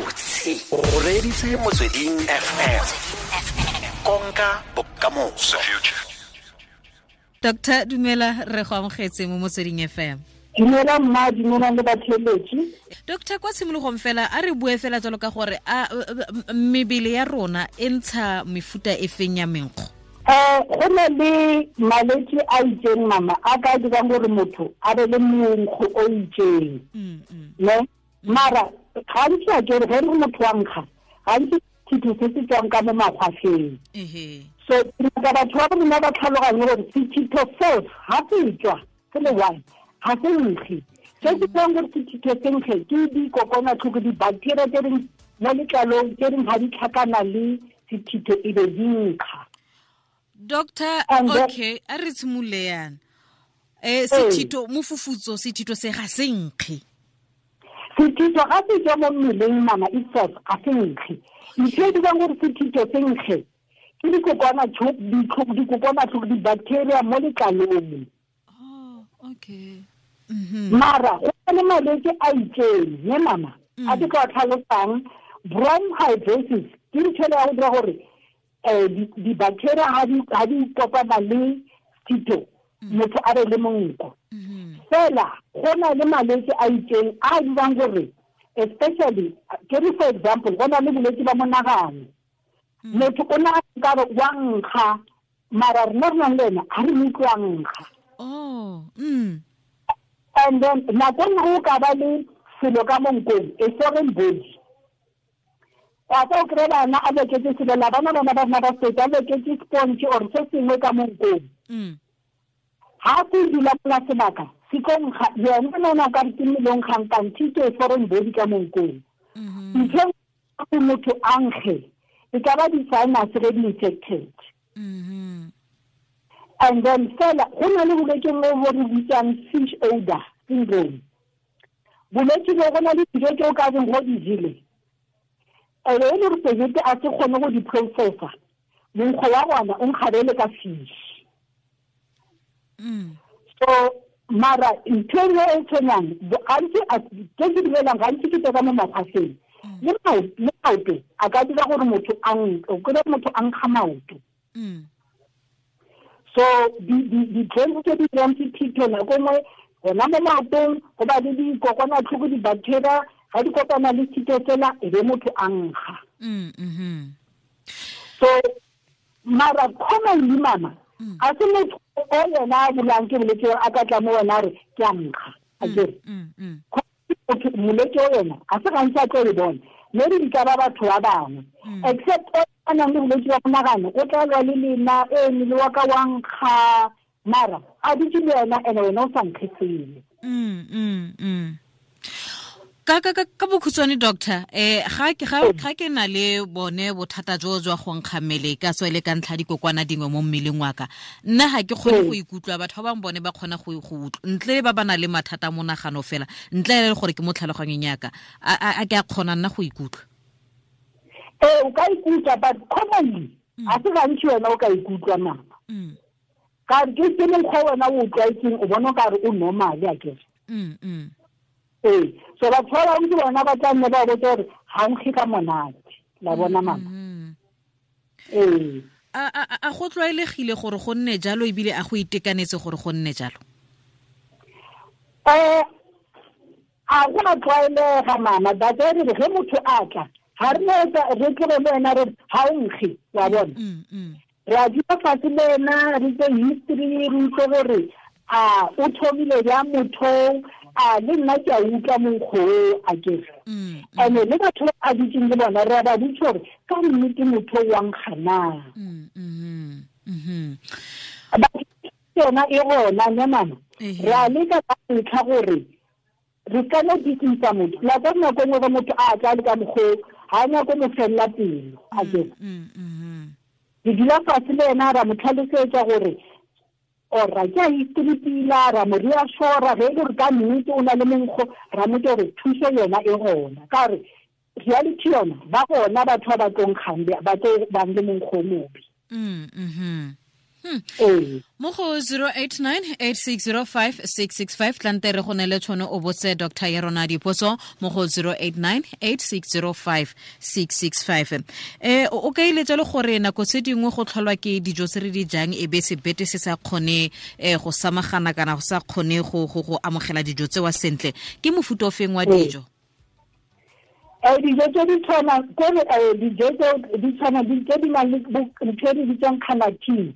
Gabotse o reeditse Motsweding FM, konka bokamoso. Doctor, dumela, re go amogetse mo Motsweding FM. Dumela mma, dumela le batheletši. Doctor, kwa tshimologong fela a re bue fela jalo ka gore a mebele ya rona e ntsha mefuta e feng ya menkgo? Go na le malwetse a itseng mama a ka dirang gore motho a be le monkgo o itseng, ne? Mara gantsi a kere ge re motho wa nkga, gantsi sethitho se se tswang ka mo makgwafeng. So ka batho ba rona ba tlhaloganye gore sethitho seo ga se tswa se le one ga se nkge. Se se dirang gore sethitho se nkge ke dikokwanatlhoko, di-bacteria tse reng mo letlalong tse reng ga di tlhakana le sethitho e be di nkga. Doctor, okay, a re tshimolole yana. Sethitho mofufutso, sethitho se ga se nkge. Sethitho ga se tswa mo mmeleng mama itself ga se nkge. Ntho e dirang gore sethitho se nkge ke dikokwanatlhoko, di-bacteria mo letlalong. Oh, okay. Mara go na le malwetse a itseng ne mama a ke tla tlhalosang. Bronchitis ke ntho ya go dira gore di-bacteria ga di kopana le sethitho motho a be le monko. Fela go na le malwetse a itseng a dirang gore especially ke re for example go na le bolwetse ba monagano. Motho o na ka re wa nkga, mara rena re nang le ena ga re mo utlwe a nkga. Oh, And then nako nngwe o ka ba le selo ka mo nkong, a foreign body. Wa tla o kry-e bana a loketse selo la bana bana ba rona ba state a loketse sponge or se sengwe ka mo nkong. Ha se dula mola sebaka se tlo nkga, yena nona o ka re ke mmele o nkgang kante ke foreign body ka mo nkong. Ntho e motho a nkge e ka ba di-sinus ge di infected. And then fela go na le bolwetse bo bo re bitsang fish odor syndrome. Bolwetse bo go na le dijo tse o ka reng go di jele, ebe e le gore sebete a se kgone go di processa, monkgo wa gona o nkgabele ka fish. So mara ntho e nngwe e tshwenyang gantsi tse ke dumelang gantsi ke tse ka mo makgwafeng. Le maoto a ka dira gore motho a o kry-e motho a nkga maoto. So di-germs tse di dirang sethitho nako nngwe gona mo maotong go ba le dikokwanatlhoko, di-bacteria ga di kopana le sethitho sela e be motho a nkga. So mara commonly mama a se motho o yena a bulang ke bolwetse a ka tla mo wena a re ke a nkga, a kere molwetse o yena a se gantsi a tlo e bona, maybe di ka ba batho ba bangwe except o a nang le bolwetse ba monagano o tla lwa le lena e mmele wa ka wa nkga, mara a dutse le wena ene wena o sa nkge sele. Ka bokhutshwane doctor, ga ke na le bone bothata jo jwa go nkga mmele ka tswa le ka ntlha dikokwana dingwe mo mmeleng wa ka, nna ga ke kgone go ikutlwa, batho ba bangwe bone ba kgona go utlwa ntle le ba ba nang le mathata a monagano fela, ntle le gore ke mo tlhaloganyong ya ka, a ke a kgona nna go ikutlwa? Ee, o ka ikutlwa, but commonly a se gantsi wena o ka ikutlwa mama. Ka re ke mokgwa wena o tlwaetseng, o bona o ka re o normal a kere. Ee, so batho ba bangwe ke bona ba tla nne ba botsa gore ga nkge ka monate, la bona mama. Ee. A go tlwaelegile gore go nne jalo ebile a go itekanetse gore go nne jalo? A go a tlwaelega mama, but re re ge motho a tla ga re no etsa re tloge le wena re ga o nkge, wa bona. Re a dula fatshe le ena re tse history, re utlwe gore a o thomile jang motho, a le nna ke a utlwa monkgo o a kere. And-e le batho ba a dutseng le bona re a ba botsa gore ka nnete motho o wa nkga na. Yona e gona ne mama. Re a leka ka ntlha gore re ka no dikisa motho. La ka nako nngwe ge motho a tla le ka mokgwa o, ga a nyake mo fella pelo, a kere. Re dula fatshe le ena ra mo tlhalosetsa gore ora ke a history pila, ra mo reassure ge e le gore ka nnete o na le monkgo, ra mo gore thuso yona e gona. Ka gore reality yona ba gona batho ba ba tlo nkgang, ba tlo bang le monkgo o mobe. Mo go 089 860 5665, tlante re go ne le tšhono o botse doctor ya rona dipotso mo go 089 860 5665. O ka ile jalo gore nako tse dingwe go tlholwa ke dijo tse re di jang, e be sebete se sa kgone go samagana kana go sa kgone go amogela dijo tsewa sentle. Ke mofuta o feng wa dijo? Dijo tse di tshwana kore dijo tse di tshwana tse di nang le ntho e re bitsang carnitine,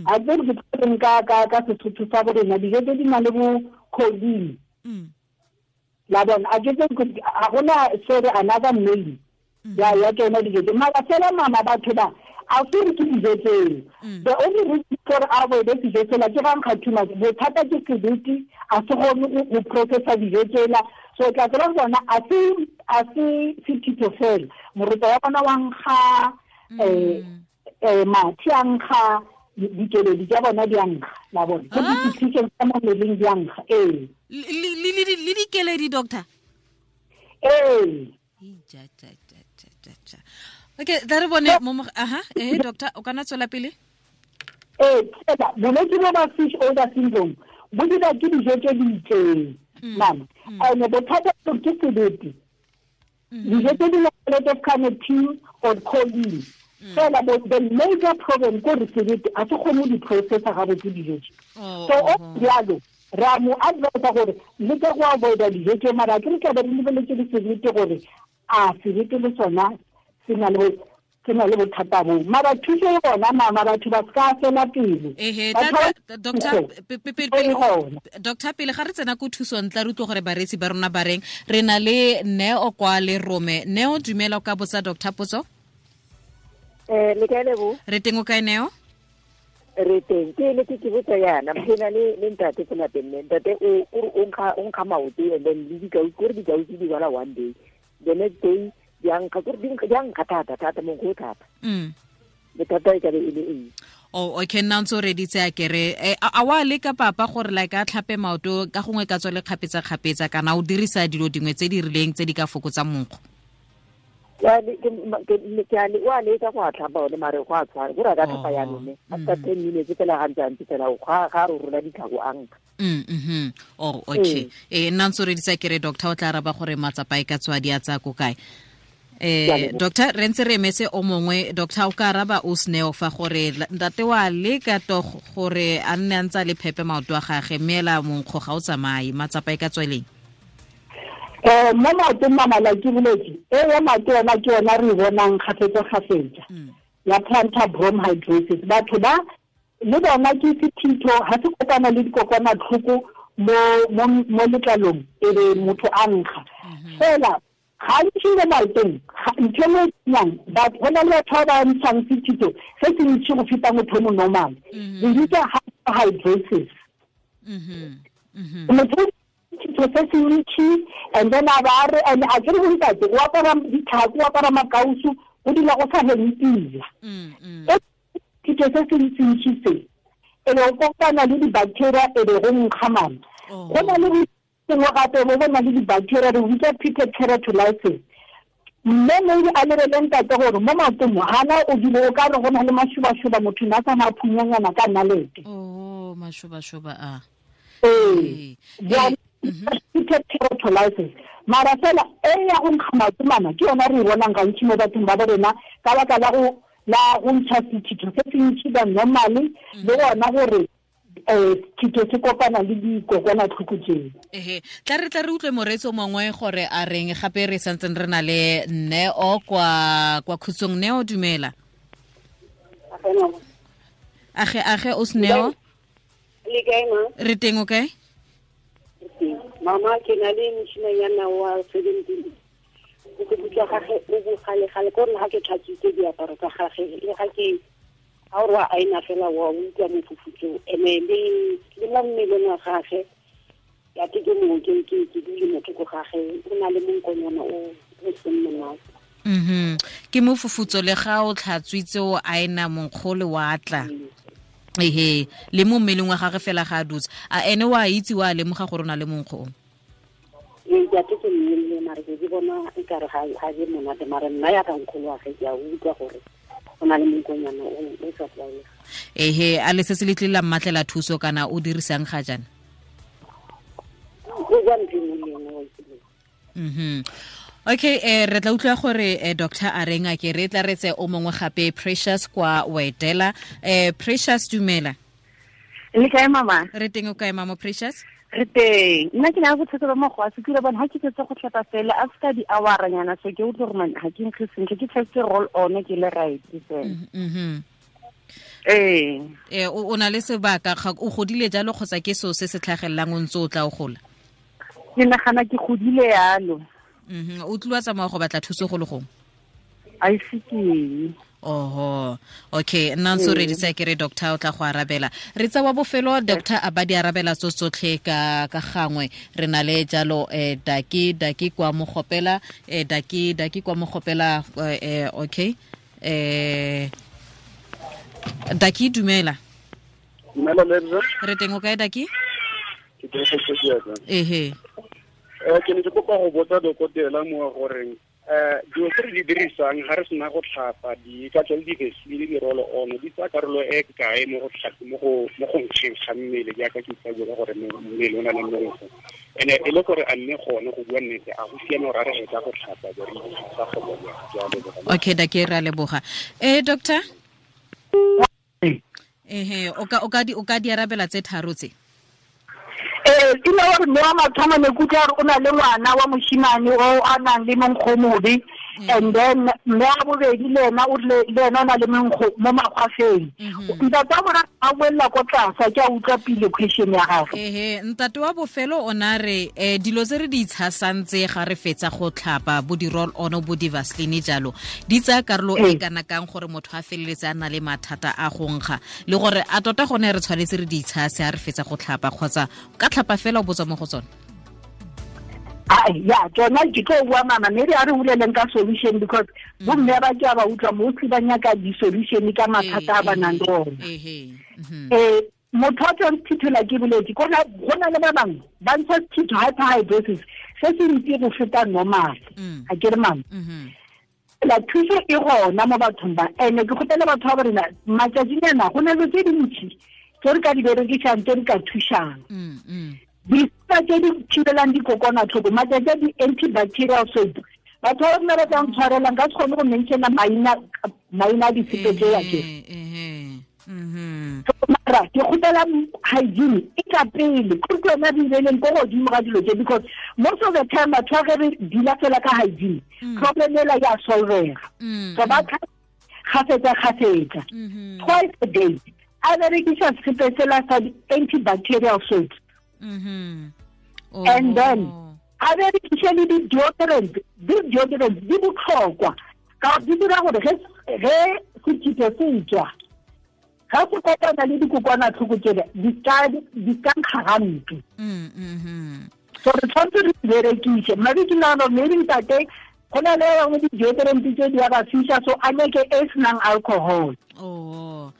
a tse re ke ka Sesotho sa bo rena, dijo tse di nang le bo choline, la bona, a ke tse ga gona se re another name ya tsona dijo tse. Mara fela mama, batho ba a se re ke dijo tseo. The only reason for avoid dijo tsela ke ga nkga too much, bothata ke sebete a se kgone go processa dijo tsela. So tla tsela bona a se sethito fela, moroto wa bona wa nkga, mathe a nkga, dikeledi tsa bona di a nkga, la bona, ke di-secretion tsa mo mmeleng di a nkga, ee. Le dikeledi, doctor? Ee. Okay, tla re bone mo. Aha, doctor, o kana tswela pele. Ee, fela bolwetse bo ba fish odor syndrome bo dira ke dijo tse di itseng, mama, and bothata ke sebete, dijo tse di nang le carnitine or choline fela. The major problem ko re sebete a se kgone go di processa gabotse dijo tse. So o jalo re a mo advisa gore le ka go avoida dijo tse, mara ke re tlabe re lebeletse le sebete gore a sebete le sona se na le bothata boo. Mara thuso e gona, mama, batho ba se ka fela pele. Ehe, doctor, pele ga re tsena ko thusong, tla re utlwe gore bareetsi ba rona ba reng. Re na le Neo kwa le rome. Neo, dumela, o ka botsa doctor potso. Le kae, Lebo? Re teng, o kae, Neo? Re teng. Ke ne ke botsa yana, ke na le ntate ko lapeng, mme ntate o nkga maoto, and then le dikausi, kore dikausi di bala one day, the next day di a nkga, kore di a nkga thata thata, monkgo o thata. Bothata e ka be e le eng? Oh, okay, nna ntse o reditse a kere. A wa leka papa gore like a tlhape maoto ka gongwe ka tswa le kgapetsa-kgapetsa, kana o dirisa dilo dingwe tse di rileng tse di ka fokotsang monkgo? Wa leka go a tlhapa one, mare go a tshwana, kore a ka tlhapa yanone after 10 minutes fela, ga ntse a ntse fela ga re rola ditlhako a nkga. Oh, okay. Nna ntse o reditse kere, doctor o tla araba gore matsapa e ka tswa di a tsaya ko kae. Doctor, re ntse re emetse o mongwe. Doctor, o ka araba o Sneo fa gore ntate wa leka to gore a nne a ntse a le phepe maoto a gage, mme ela monkgo ga o tsamaye, matsapa e ka tsweleng? Mo maotong, mama, la ke boletse e ya maoto yona, ke yona re e bonang kgafetsa-kgafetsa ya plantar bromhidrosis. Batho ba le bona ke sethitho ga se kopana le dikokwanatlhoko mo letlalong, e be motho a nkga fela. Gantsi mo maotong ntho e nngwe e batho go na le batho ba ba ntshang sethito se se ntši go feta motho o mo normal, re bitsa hyperhidrosis. Motho sethito se se ntši, and then a ba re, and a kere bontate o apara ditlhako, o apara makausu, go dula go sa heme pila. Sethito se se ntsintši se e be go kopana le di-bacteria, e be go nkga, mama. Go na le sengwe gape bo bona le di-bacteria, re bitsa pitted keratolysis. Mme maybe a lebele ntate gore mo maotong gana o dile o ka re go na le mašobašoba, motho ne a sa phunyanyana ka nalete. Oh, mašobašoba a. Ee, pitted keratolysis. Mara fela e ya go nkga maoto, mama, ke yona re e bonang gantši mo bathong ba bo rena ka baka la go ntšha sethito se se ntši ba normally, le gona gore sethito se kopana le dikokwanatlhoko tseo. Ehe, tla re utlwe moreetsi o mongwe gore a reng gape. Re santseng re na le Neo kwa Khutsong. Neo, dumela. Age, age, o Sneo. Le kae, ma? Re teng, o kae? Mama, ke na le moshimanyana wa 17. Boikutlo gage o bogale-gale, ko re ga ke tlhatswitse diaparo tsa gage, le ga ke ga ore wa aina fela, wa utlwa mofufutso, ene le mo mmeleng wa gage ya ke mongwe ke dule motho ko gage, o na le monkonyana o seng monate. Ke mofufutso le ga o tlhatswitse, o aena, monkgole wa tla. Ehe, le mo mmeleng wa gage fela ga a dutse. A ene wa itse, wa lemoga gore o na le monkgo o? Ee, ke ate ke mmelle, mare ke bona e kare ga je monate, mare nna ya ka nkgolo wa ge ke a utlwa gore O na le monkonyana o sa tlwaelega. Ehe, a le se se le tlile la mmatlela thuso kana o dirisang ga jaana? Go ja ntho e le nngwe. Okay, re tla utlwa gore doctor a reng a ke re tla retse o mongwe gape, Precious kwa Wedela. Precious, dumela. Le kae, mama? Re teng, o kae, mama Precious? Re teng. Nna ke na le bothata ba mokgwa se kile bona ha ke fetsa go tlhapa fela after di hour nyana, so ke utlwe gore man ha ke nkge sentle, ke tshetse roll on ke le right fela. Ee. O na le sebaka, o godile jalo kgotsa ke so se se tlhagelelang o ntse o tla o gola? Ke nagana ke godile yalo. O tlile wa tsamaya go batla thuso go le gongwe? A ise ke. Oho, okay, nna ntse o reditse ke re doctor o tla go arabela. Re tsa wa bofelo, doctor a ba di arabela tso tsotlhe ka gangwe. Re na le jalo daki kwa Mogopela, daki kwa Mogopela, okay. Daki, dumela. Dumela, Lebza. Re teng, o kae, Daki? Ke teng, go Ehe. Ke ne ke kopa go botsa dokotela mo goreng dilo tse re di dirisang ga re sena go tlhapa, di ka tswa le di-Vaseline le di-roll on, di tsaya karolo e kae mo go tlhape, mo go nkgeng ga mmele, jaaka ke itsa bua gore mmele o na le mmereko, and-e e le gore a mme gone go bua nnete a go siame gore a re hetsa go tlhapa be re itsa go bona jalo? Okay, Daki, re a leboga. Doctor, ehe, o ka di arabela tse tharo tse? Ee, ke ne gore mme wa mathomo ne ke utlwa gore o na le ngwana wa moshimane o a nang le monkgo mobe, and then mme wa bobedi le ena o rile le ena o na le monkgo mo makgwafeng. Ntate wa boraro a boella ko tlase, ke a utlwa pele question ya gagwe. Ehe, ntate wa bofelo o na re dilo tse re di itshasang tse ga re fetsa go tlhapa, bo di-roll on, bo di-Vaseline jalo, di tsaya karolo e kana kang gore motho a feleletse a na le mathata a go nkga, le gore a tota gone re tshwanetse re di itshase ha re fetsa go tlhapa kgotsa ka tlhapa fela o botswa mo go tsone? Ai, ya, tsona ke tlo bua, mama, maybe a re boleleng ka solution, because bomme ba ke a ba utlwa mostly ba nyaka di-solution ka mathata a ba nang le ona. Motho a tswang sethithola ke boletse, go na le ba bangwe ba ntsha sethitho, hyperhidrosis, se se ntsi go feta normal. A ke re, mama, la thuso e gona mo bathong ba, ene ke kgopela batho ba rena matšatšinyana go na le tse dintši tse re ka di berekisang, tse re ka thušang, disepa tse di thibelang dikokwanatlhoko matšatši a, di-antibacterial soap. Batho ba rena ba tla ntshwarelang ka se kgone go mentiona maina a disepe tseo ke. Mara ke kgopela hygiene e ka pele, kore ke yona re ileleng ko godimo ga dilo tse, because most of the time batho ba ge re dula fela ka hygiene, problem ela ya solvega. So ba kgafetsa kgafetsa, twice a day, a berekisa sepe sela sa di-antibacterial soap, and then a berekise le di-deodorant. Di-deodorant di botlhokwa ka gore di dira gore ge sethitho se tswa, ga se kopana le dikokwanatlhoko tsele, di ka nkga gampe. So re tshwanetse re di berekise. Maybe ke nagana gore maybe ntate go na le bangwe di-deodorant tse di a ba fisa, so a nyake e senang alcohol. Oh.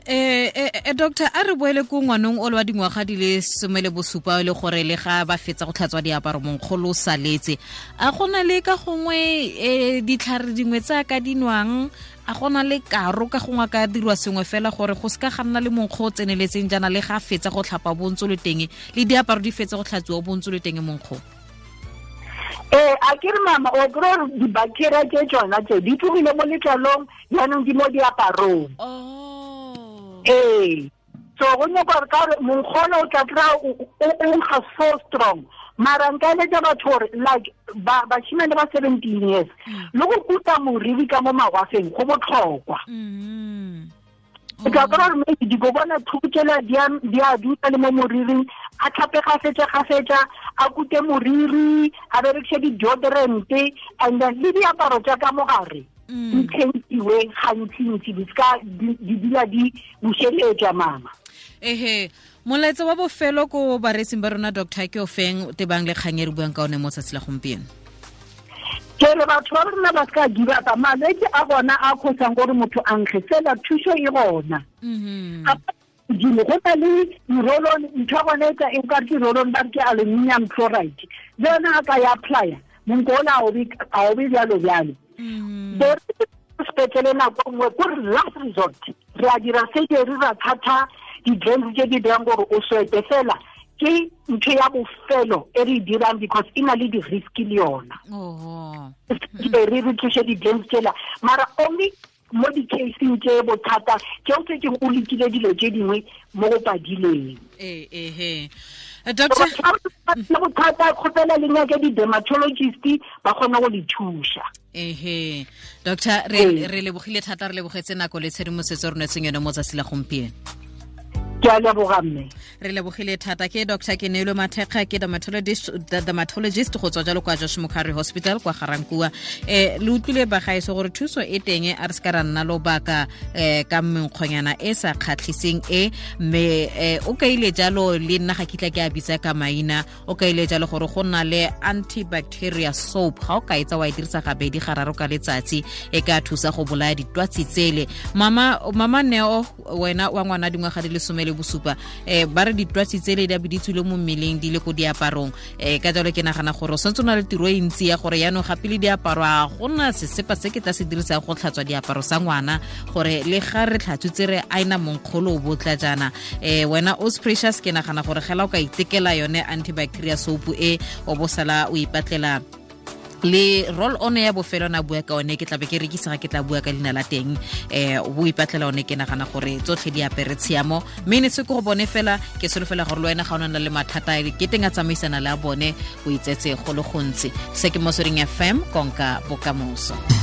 Doctor, a re boele ko ngwanong o le wa dingwaga di le 17, le gore le ga ba fetsa go tlhatswa diaparo monkgolo o saletse, a gona le ka gongwe ditlhare dingwe tse a ka dinwang, a gona le karo ka gongwe a ka dirwa sengwe fela gore go seka ga nna le monkgo o tseneletseng jaana, le ga fetsa go tlhapa bontso le teng, le diaparo di fetsa go tlhatsiwa bontso le teng monkgo? Ee, a ke re, mama, o kry gore di-bacteria tse tsona tse di tlogile mo letlalong, jaanong di mo diaparong. Ee, so go nyaka gore ka gore monkgono o tla kry-a o nkga so strong, mara nka eletsa batho gore like bashimane ba 17 years le go kuta moriri ka mo magwafeng go botlhokwa. O tla kry-a gore maybe dikokwanatlhoko tsela di a dutla le mo moriring. A tlhape gafetsa gafetsa, a kute moriri, a berekise di-deodorant, and then le diaparo tsa ka mogare di tšhentiwe gantsi-ntsi, di ska di dula di bušeletswa, mama. Ehe, molaetsa wa bofelo ko bareetsing ba rona, doctor, ke o feng tebang le kgang e re buang ka one mo tsatsi la gompieno? Ke re batho ba rona ba seka give up. Malwetse a gona a kgosang gore motho a nkge fela, thuso e gona godimo. Go na le di-roll-on, ntho ya gone e ka ke roll-on, ba re ke aluminium chloride, le yona a ka ya applya, monko ona a o be jalo jalo. sepetlele nako nngwe ko re last resort re a dira surgery ra thatha di-drains tse di dirang gore o swete fela ke ntho ya bofelo e re e dirang because e na le di-risk le yona re re tlose di-drains tsela mara only mo di-caseng tse bothata ke o setse o lekile dilo tse dingwe mo go padileng. Ee, doctor, bothata kgopela le nyake di-dermatologist ba kgone go le thuša. Ehe, doctor, re lebogile thata, re lebogetse nako le tshedimosetso re nwetseng yone mo tsatsi la gompieno. Ke a leboga mme. Re lebogile thata. Ke Dr Kenelo Mathekga, ke dermatologist go tswa jalo kwa Josh Mokgari Hospital kwa Garankua. Le utlwile bagaeso gore thuso e teng, a re se ka ra nna lobaka ka menkgonyana e sa kgatlhiseng e, mme o kaile jalo le nna ga kitla ke a bitsa ka maina, o kaile jalo gore go nna le antibacteria soap, ga o ka etsa wa e dirisa gabedi gararo ka letsatsi e ka thusa go bolaya ditwatsi tsele. Mama Neo, wena wa ngwana dingwaga di le 17, ba re ditwatsi tsele di a be di tswile mo mmeleng di le ko diaparong, ka jalo ke nagana gore o santse o na le tiro e ntsi ya gore yaanong gape le diaparo a gona sesepa se ke tla se dirisang go tlhatswa diaparo sa ngwana, gore le ga re tlhatswitse re aina monkgolo o botla jaana. Wena Os Precious, ke nagana gore gela o ka itekela yone antibacteria soap e, o bo sala o ipatlela le roll on ya bofelo na bua ka one, ke tla be ke rekisa ga ke tla bua ka leina la teng, o ipatlela one. Ke nagana gore tsotlhe di apere tshiamo, mme ne se ke go bone fela, ke solofela gore le wena ga o na le mathata ke teng a tsamaisana le a bone, o itsetse go le gontsi. Se ke Motsweding FM, konka bokamoso.